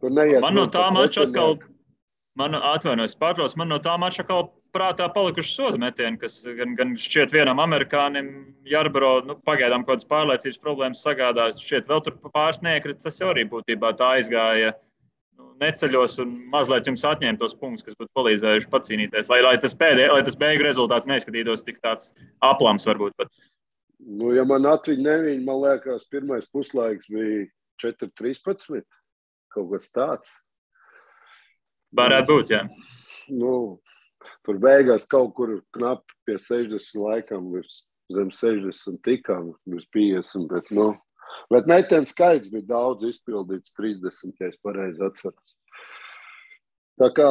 Man no tā mača atkal, man no tā mača atkal prātā palikuši soda metieni, kas gan šķiet vienam amerikānim, Jarbro, pagaidām kaut kādas pārliecības problēmas sagādās, šķiet vēl tur pāris neiekrita, tas jau arī būtībā tā aizgāja neceļos un mazliet jums atņēma tos punktus, kas būtu palīdzējuši pacīnīties, lai tas beigu rezultāts neizskatītos tik tāds aplams varbūt pat. Ja man atviņ, man liekas, pirmais puslaiks bija 4-13, kaut kas tāds. Varētu būt, jā. Tur beigās kaut kur knapi pie 60 laikam, zem 60 tikām, bez 50, bet metienu skaits bija daudz izpildīts, 30, ja es pareizi atceros. Tā kā,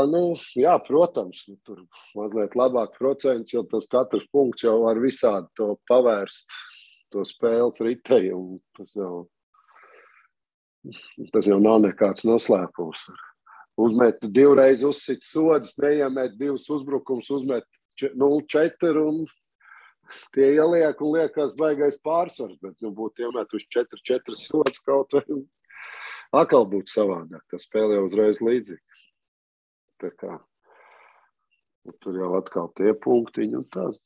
jā, protams, tur mazliet labāk procents, jo tas katrs punkts jau var visādi to pavērst, to spēles ritējumu. Tas jau nav nekāds noslēpums. Uzmet 2 reizes uzsit sodas, neiemet 2 uzbrukums, uzmet 0-4 un tie ieliek un liekas baigais pārsvars, bet būtu iemetuši 4 sodas kaut vai atkal būtu savādāk. Tā spēle jau uzreiz līdzīga. Tā kā tur jau atkal tie punktiņi un tās.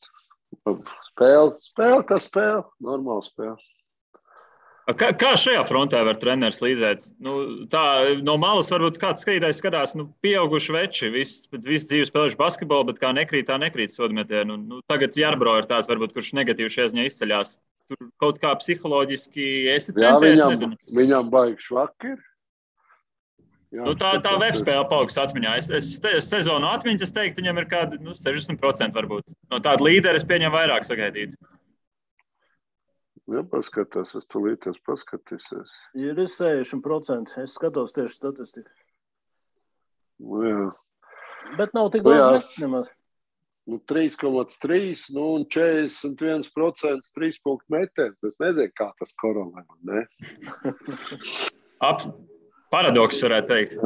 Spēle, kā spēle, normāla spēle. Kā šajā frontē var treneris līdzēt? Tā no malas varbūt kāds skatītājs skatās, pieauguši veči, viss dzīves spēlējuši basketbolu, bet kā nekrīt sodmetienu. Tagad Jarbro ir tāds, varbūt, kurš negatīvi šajā ziņā izceļās. Tur kaut kā psiholoģiski esi centies, nezinu. Viņam baigi švaki ir. Tā web spēle paliks atmiņā. Es sezonu atmiņas, es teiktu, viņam ir kādi 60% varbūt. No tāda līdera es pieņemu vairāk sagaidīt. Ja paskatās, es tulīties paskatīsies. Ir 60%. Es skatos tieši statistiku. Jā. Bet nav tik daudz metis nemaz. 3,3 un 41% 3 punktu metienu. Es nezinu, kā tas korolē, ne? Paradoks varētu teikt.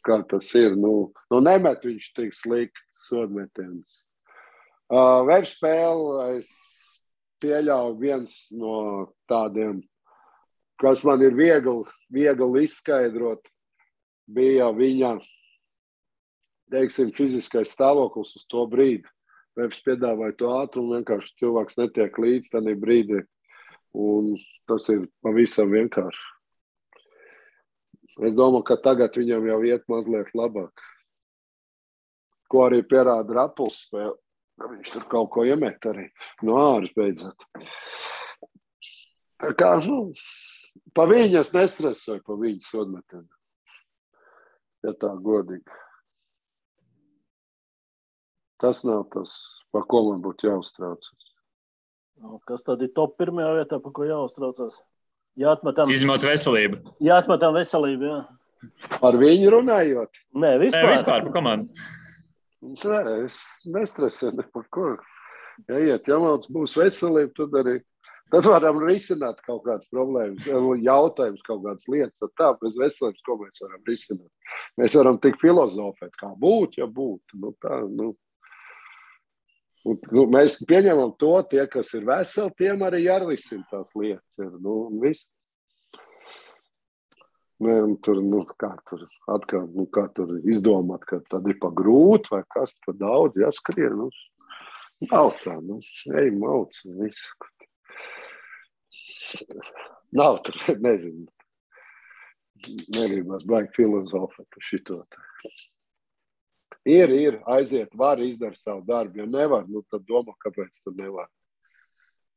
Kā tas ir. Nemet viņš tik slikts sodmetiens. Webspēle es pieļauju viens no tādiem, kas man ir viegli izskaidrot, bija viņa, teiksim, fiziskais stāvoklis uz to brīdi. Webs piedāvāja to ātrumu, vienkārši cilvēks netiek līdz tādā brīdī, un tas ir pavisam vienkārši. Es domāju, ka tagad viņam jau iet mazliet labāk. Ko arī pierāda Rapuls spēle. Viņš tur kaut ko iemet arī no āras beidzot. Tā kā, pa viņu es nestresoju, pa viņu sodmetienu. Ja tā godīgi. Tas nav tas, pa ko man būtu jāuztraucas. Kas tad ir top pirmajā vietā, pa ko jāuztraucas? Izņemot veselību. Jāatmetam veselību, jā. Par viņu runājot? Nē, vispār. Vispār pa komandu. Nē, es nestresēju ne par ko. Ja iet Jamalts būs veselība, tad varam risināt kaut kādas problēmas, jautājumus, kaut kādas lietas. Tā, bez veselības, ko mēs varam risināt? Mēs varam tik filozofēt, kā būt, ja būtu. Mēs pieņemam to, tie, kas ir veseli, tiem arī jārisina tās lietas. Viss. Tur izdomāt, ka tad ir pa grūti vai kas, pa daudz jāskrien. Nav tā, ej mauc, visu. Nav tur, nezinu. Nerībās baigi filozofēt par šito. Ir, aiziet, var izdara savu darbu. Ja nevar, tad domā, kāpēc tu nevar.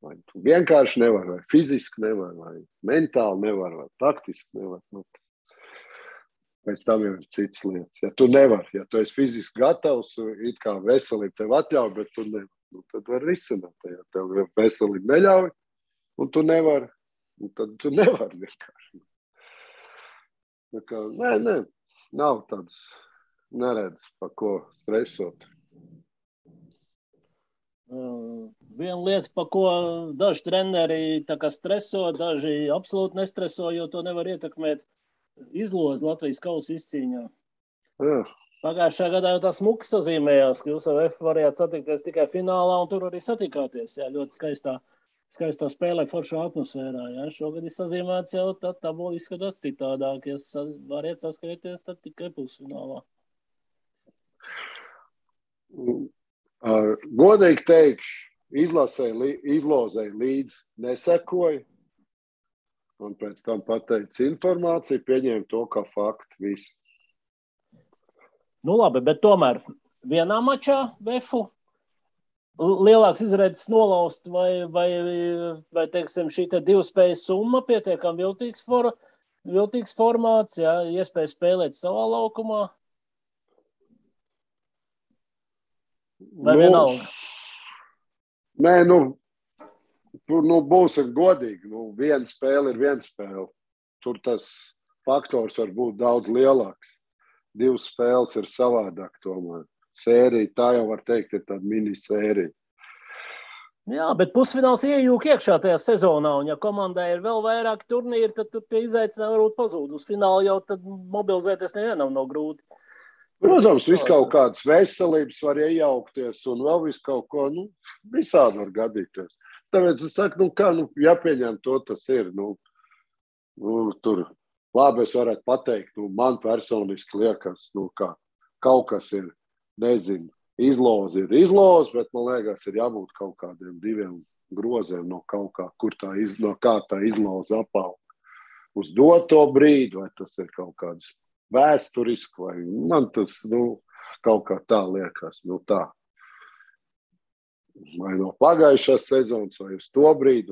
Vai tu vienkārši nevar, vai fiziski nevar, vai mentāli nevar, vai taktiski nevar. Pēc tam jau ir citas lietas. Ja tu nevar, ja tu esi fiziski gatavs, it kā veselība tev atļauj, bet tu nevar, tad var risināt. Ja tev veselība neļauj, un tu nevari, tad tu nevari vienkārši. Nē, nav tāds, neredz, par ko stresot. Viena lieta, par ko daži treneri tā kā streso, daži absolūti nestreso, jo to nevar ietekmēt izlozi Latvijas kausa izcīņā. Jā. Pagājušā gadā jau tā smuki sazīmējās, ka jūs ar F varējāt satikties tikai finālā, un tur arī satikāties. Jā, ļoti skaistā spēlē foršā atmosfērā. Jā. Šogad ir sazīmēts jau, tad tabula izskatās citādāk. Ja variet saskrieties, tad tikai pusfinālā. Godīgi teikšu, izlozei līdz nesekoju, un pēc tam pateicu informāciju, pieņēmu to kā faktu visu. Labi, bet tomēr vienā mačā Vefu lielāks izredzes nolaust vai teiksim, šī te divu spēju summa pietiekam viltīgs formāts, jā, iespēja spēlēt savā laukumā. Vai vienalga? Nē, būsim godīgi. Viena spēle ir viena spēle. Tur tas faktors var būt daudz lielāks. Divas spēles ir savādāk tomēr. Sērija, tā jau var teikt, ir tāda minisērija. Jā, bet pusfināls iejūk iekšā tajā sezonā, un ja komandai ir vēl vairāk turnīri, tad tur tie izaicinājumi varbūt pazūd. Uz finālu jau tad mobilizēties nevienam nav grūti. Protams, viss kaut kādas veselības var iejaukties un vēl viss kaut ko, visādi var gadīties. Tāpēc es saku, jāpieņem to, tas ir. Tur labi es varētu pateikt, man personiski liekas, ka kaut kas ir, nezinu, izloze, bet man liekas, ir jābūt kaut kādiem diviem groziem no kaut kā, no kā tā izloze apaug uz doto brīdi, vai tas ir kaut kāds vēsturiski, vai man tas, kaut kā tā liekas, tā. Vai no pagājušās sezonas, vai uz to brīdi,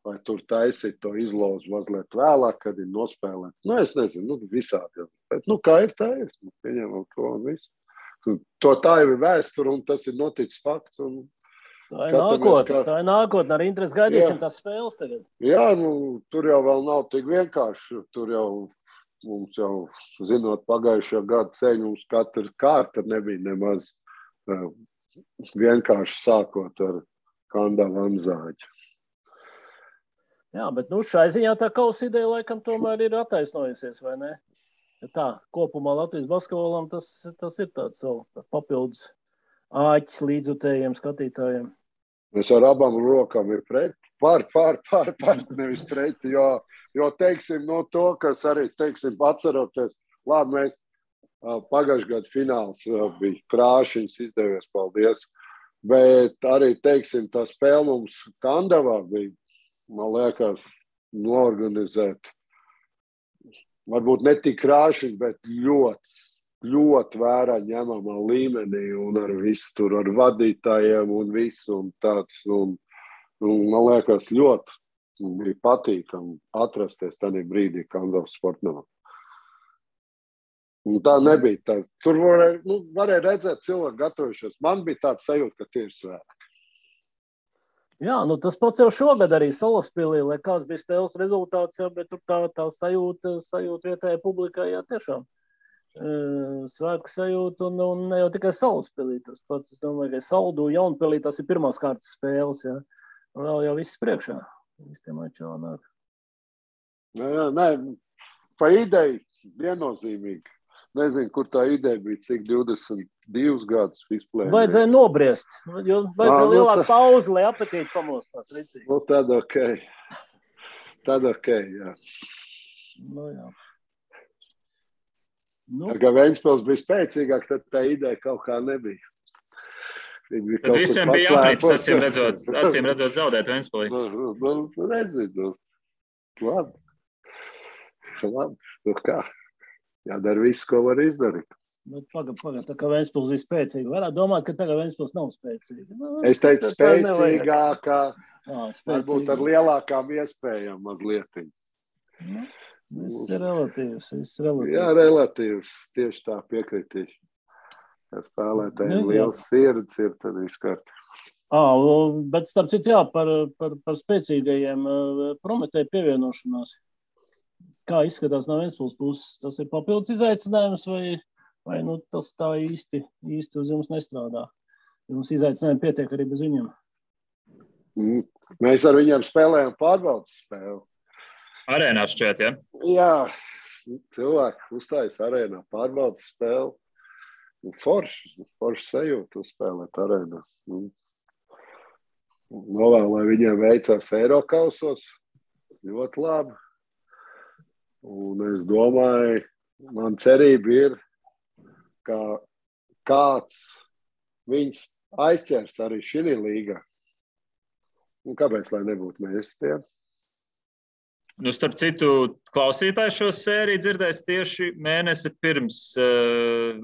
vai tur taisīt to izlozi mazliet vēlāk, kad ir nospēlēt. Es nezinu, visādi. Bet, kā ir, tā ir. Pieņemam to un visu. Tā jau ir vēsture, un tas ir noticis fakts. Tā ir nākotne. Ar interesi gaidīsim tās spēles tagad. Jā, tur jau vēl nav tik vienkārši. Tur jau mums jau, zinot pagājušā gada ceļu, mums katra kārta nebija nemaz vienkārši sākot ar Kandavu Anzāģu. Jā, bet šai ziņā tā kausa ideja laikam tomēr ir attaisnojusies, vai ne? Ja tā, kopumā Latvijas basketbolam tas ir tāds vēl papildus āķis līdzjutējiem skatītājiem. Es ar abām rokām ir pret, pār, nevis pret, jo teiksim, to, kas arī, teiksim, atceroties, labi, mēs pagājušajā gada fināls bija krāšiņas, izdevies, paldies, bet arī, teiksim, tā spēle mums Kandavā bija, man liekas, noorganizēt, varbūt ne tik krāšiņi, bet ļoti vērā ņemamā līmenī un ar visu tur, ar vadītājiem un visu un tāds, un man liekas, ļoti bija patīkami atrasties tādā brīdī Kandavas sportnamā. Un tā nebija tā. Tur varēja redzēt cilvēku gatavojušies. Man bija tāds sajūta, ka tie ir svētki. Jā, tas pats jau šogad arī Salaspilī, lai kāds bija spēles rezultāts, bet tur tā sajūta vietējai publikai, jā, tiešām. svētku sajūtu un ne jau tikai Salaspilī. Tas pats, es domāju, ka Saldu Jaunpilī tas ir pirmās kārtas spēles, ja. Un vēl jau viss priekšā. Viss tie mači vēl nāk. Nē, pa ideju viennozīmīgi. Nezinu, kur tā ideja bija, cik 22 gadus vispār. Vajadzēja nobriest, jo vajadzēja lielāku pauzi, lai apetīti pamostās rīcīgi. Nu, tad ok, jā. Nu, jā. Tā kā Ventspils bija spēcīgāk, tad tā ideja kaut kā nebija. Tad visiem bija jāpēc, acīm redzot zaudēt Ventspilī. Redzi, labi. Nu kā? Jādara viss, ko var izdarīt. Pagad, tā kā Ventspils ir spēcīga. Varētu domāt, ka tagad Ventspils nav spēcīga. Es teicu spēcīgākā, varbūt ar lielākām iespējām mazliet. Viss ir relatīvs. Jā, relatīvs. Tieši tā piekritīši. Ja spēlētājiem liels sirds ir, tad viss kārtībā. Bet starp citu, jā, par spēcīgajiem Prometēja pievienošanās. Kā izskatās no Ventspils puses? Tas ir papildus izaicinājums vai nu, tas tā īsti uz jums nestrādā? Jums izaicinājumi pietiek arī bez viņiem? Mēs ar viņiem spēlējam pārbaudas spēli. Arēnā šķiet, ja? Jā, cilvēki uzstājas arēnā pārbaudas spēli. Forši sajūta uzspēlēt arēnā. Novēl, lai viņiem veicās Eirokausos. Ļoti labi. Un es domāju, man cerība ir, ka kāds viņus aizķers arī šī līgā. Un kāpēc, lai nebūtu mēs tie? Nu, starp citu, klausītāji šo sēriju dzirdēs tieši mēnesi pirms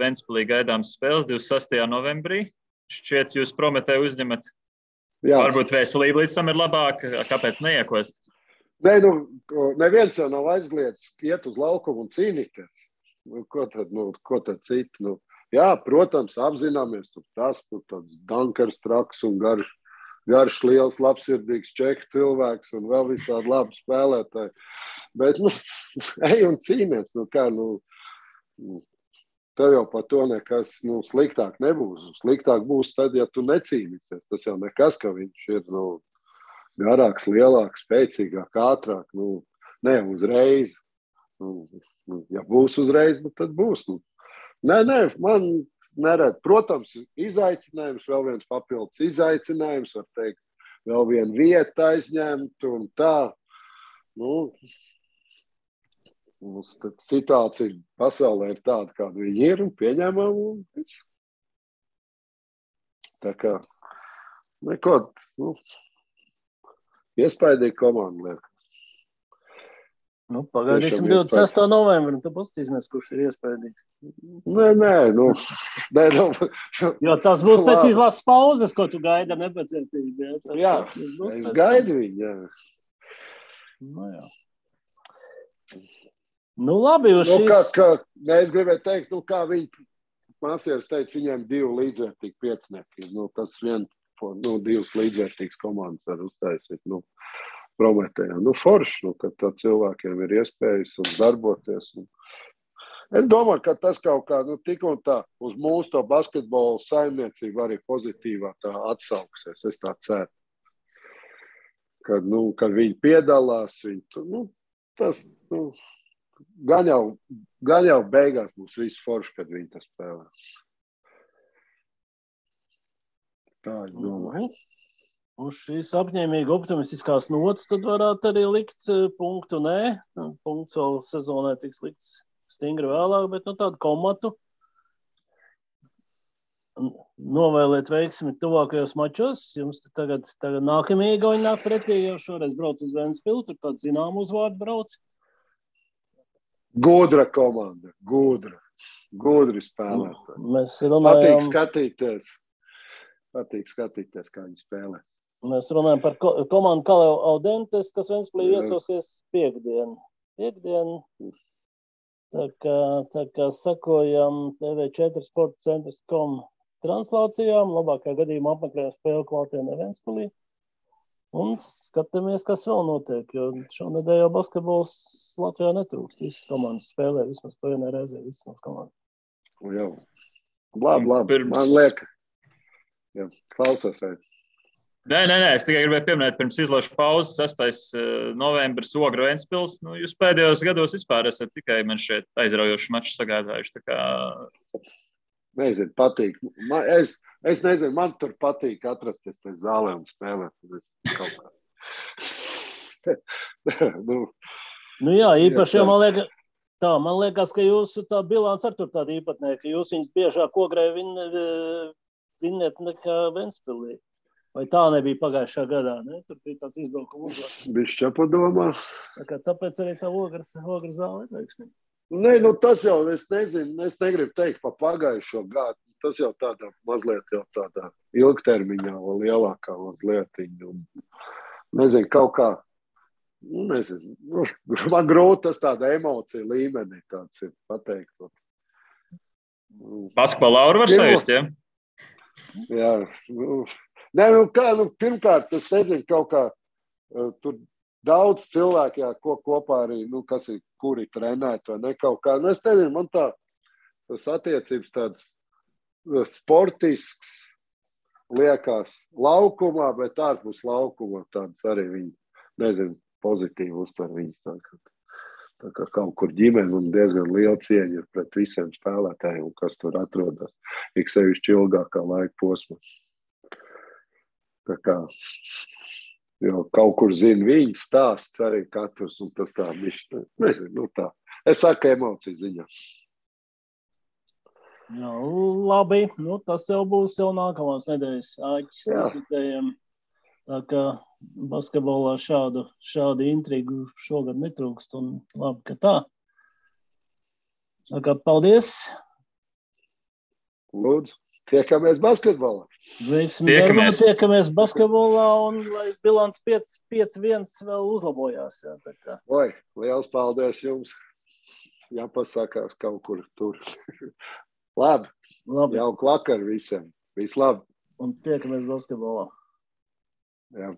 Ventspilī gaidāmas spēles, 26. novembrī. Šķiet, jūs Prometēju uzņemat. Jā. Varbūt veselība līdz tam ir labāka. Kāpēc neiekost? Nē, neviens jau nav aizliedz iet uz laukumu un cīnīties. Ko tad citi? Jā, protams, apzināmies, tur tāds dankars traks un garš liels, labsirdīgs čehu cilvēks un vēl visādi labi spēlētāji. Bet, ej un cīnies. Tev jau par to nekas sliktāk nebūs. Sliktāk būs tad, ja tu necīnīsies. Tas jau nekas, ka viņš ir, garāks, lielāks, spēcīgāk, ātrāk, ne uzreiz. Ja būs uzreiz, tad būs. Nē, man neredz. Protams, izaicinājums, vēl viens papildus izaicinājums, var teikt, vēl viena vieta aizņemt un tā. Situācija pasaulē ir tāda, kāda viņi ir un pieņemam. Tā kā, neko, iespaidīgi komanda liekas. Pagaidīsim 26. novembri, un tad paskatīsimies, kurš ir iespaidīgs. Nē. Jo tas būs pēc izlases pauzes, ko tu gaidi ar nepacietību. Jā, es gaidu viņu, jā. Jā. Labi, jūs šīs... Es gribēju teikt, kā viņi māsieris teica, viņiem 2 līdzvērtīgi piecinieki. Tas vien 2 līdzvērtīgas komandas var uztaisīt. Prometējā. Forši, ka tā cilvēkiem ir iespējas un darboties. Es domāju, ka tas kaut kā tik un tā uz mūsu to basketbolu saimniecību arī pozitīvā tā atsauksies. Es tā ceru. Kad viņi piedalās, tas gan jau beigās būs viss forši, kad viņi tas spēlē. Tā es domāju. Uz šīs apņēmīgi optimistiskās nots tad varētu arī likt punktu nē. Punkts vēl sezonē tiks likts stingri vēlāk, bet tādu komatu novēlēt veiksmi tuvākajos mačos. Jums tagad nākamie Igauni nāk pretī, jau šoreiz brauc uz Ventspilu, tur tādu zināmu uzvārdu brauc. Gudra komanda, gudri spēlētāji. Mēs runājam... Patīk skatīties, kā viņi spēlē. Mēs runājam par komandu Kaleo Audentes, kas Ventspilī viesosies piekdien. Tā kā sakojam TV4 Sporta centrs.com translācijām, labākajā gadījumā apmeklējam spēli klātienē Ventspilī. Un skatāmies, kas vēl notiek, jo šonedēļ jau basketbols Latvijā netrūkst. Visas komandas spēlē, vismaz pa vienai reizē, visas komandas. Jau. Labi. Man liek. Jā, klausos, vai? Nē, es tikai gribēju pieminēt, pirms izlašu pauzes, 6. novembris Ogru Ventspils. Nu, jūs pēdējos gados vispār esat tikai man šeit aizraujoši maču sagādājuši. Tā kā... Nezinu, patīk. Es nezinu, man tur patīk atrasties te zālē un spēlēt. Kaut kā. Nu jā, īpaši jau man liekas, ka jūsu tā bilants ar tur tāda īpatnē, ka jūs viņas biežāk Ogrē vinēt nekā Ventspilī. Vai tā nebija pagājušā gadā, ne? Tur bija tāds izbraukuma uzvārds. Bišķi padomā. Tāpēc arī tā Ogra zāle ir veiksmīga. Nē, tas jau, es nezinu, es negribu teikt pa pagājušo gadu. Tas jau tādā mazliet jau tādā ilgtermiņā vēl lielākā mazlietiņa. Nezinu, kaut kā, nezinu, man grūti tas tāda emocija līmenī tāds ir pateikt. Basketbola lauru var sajust, ja? Jā, Nē, pirmkārt, es nezinu, kaut kā tur daudz cilvēku, ko kopā arī, kuri trenēt vai ne kaut kā. Es nezinu, man tas attiecības tāds sportisks liekas laukumā, bet ārpus laukuma tāds arī viņi, nezinu, pozitīvi uztver viņas tā kā kaut kur ģimeni un diezgan liela cieņa ir pret visiem spēlētājiem, kas tur atrodas, ik sevišķi ilgākā laika posmā. Tā kā jau kaut kur zina viņas stāsts arī katrs, un tas tā bišķi, nezinu, tā. Es saku emociju ziņā. Jā, labi, tas jau būs jau nākamās nedēļas āķis. Tā kā basketbolā šādu intrigu šogad netrūkst, un labi, ka tā. Tā kā paldies. Lūdzu. Tiekamies basketbolā. Tiekamies basketbolā un lai bilants 5-1 vēl uzlabojās. Jā, tā kā. Oi, liels paldies jums. Jāpasakās kaut kur tur. Labi. Jauku vakaru visiem. Viss labi. Un tiekamies basketbolā. Jā.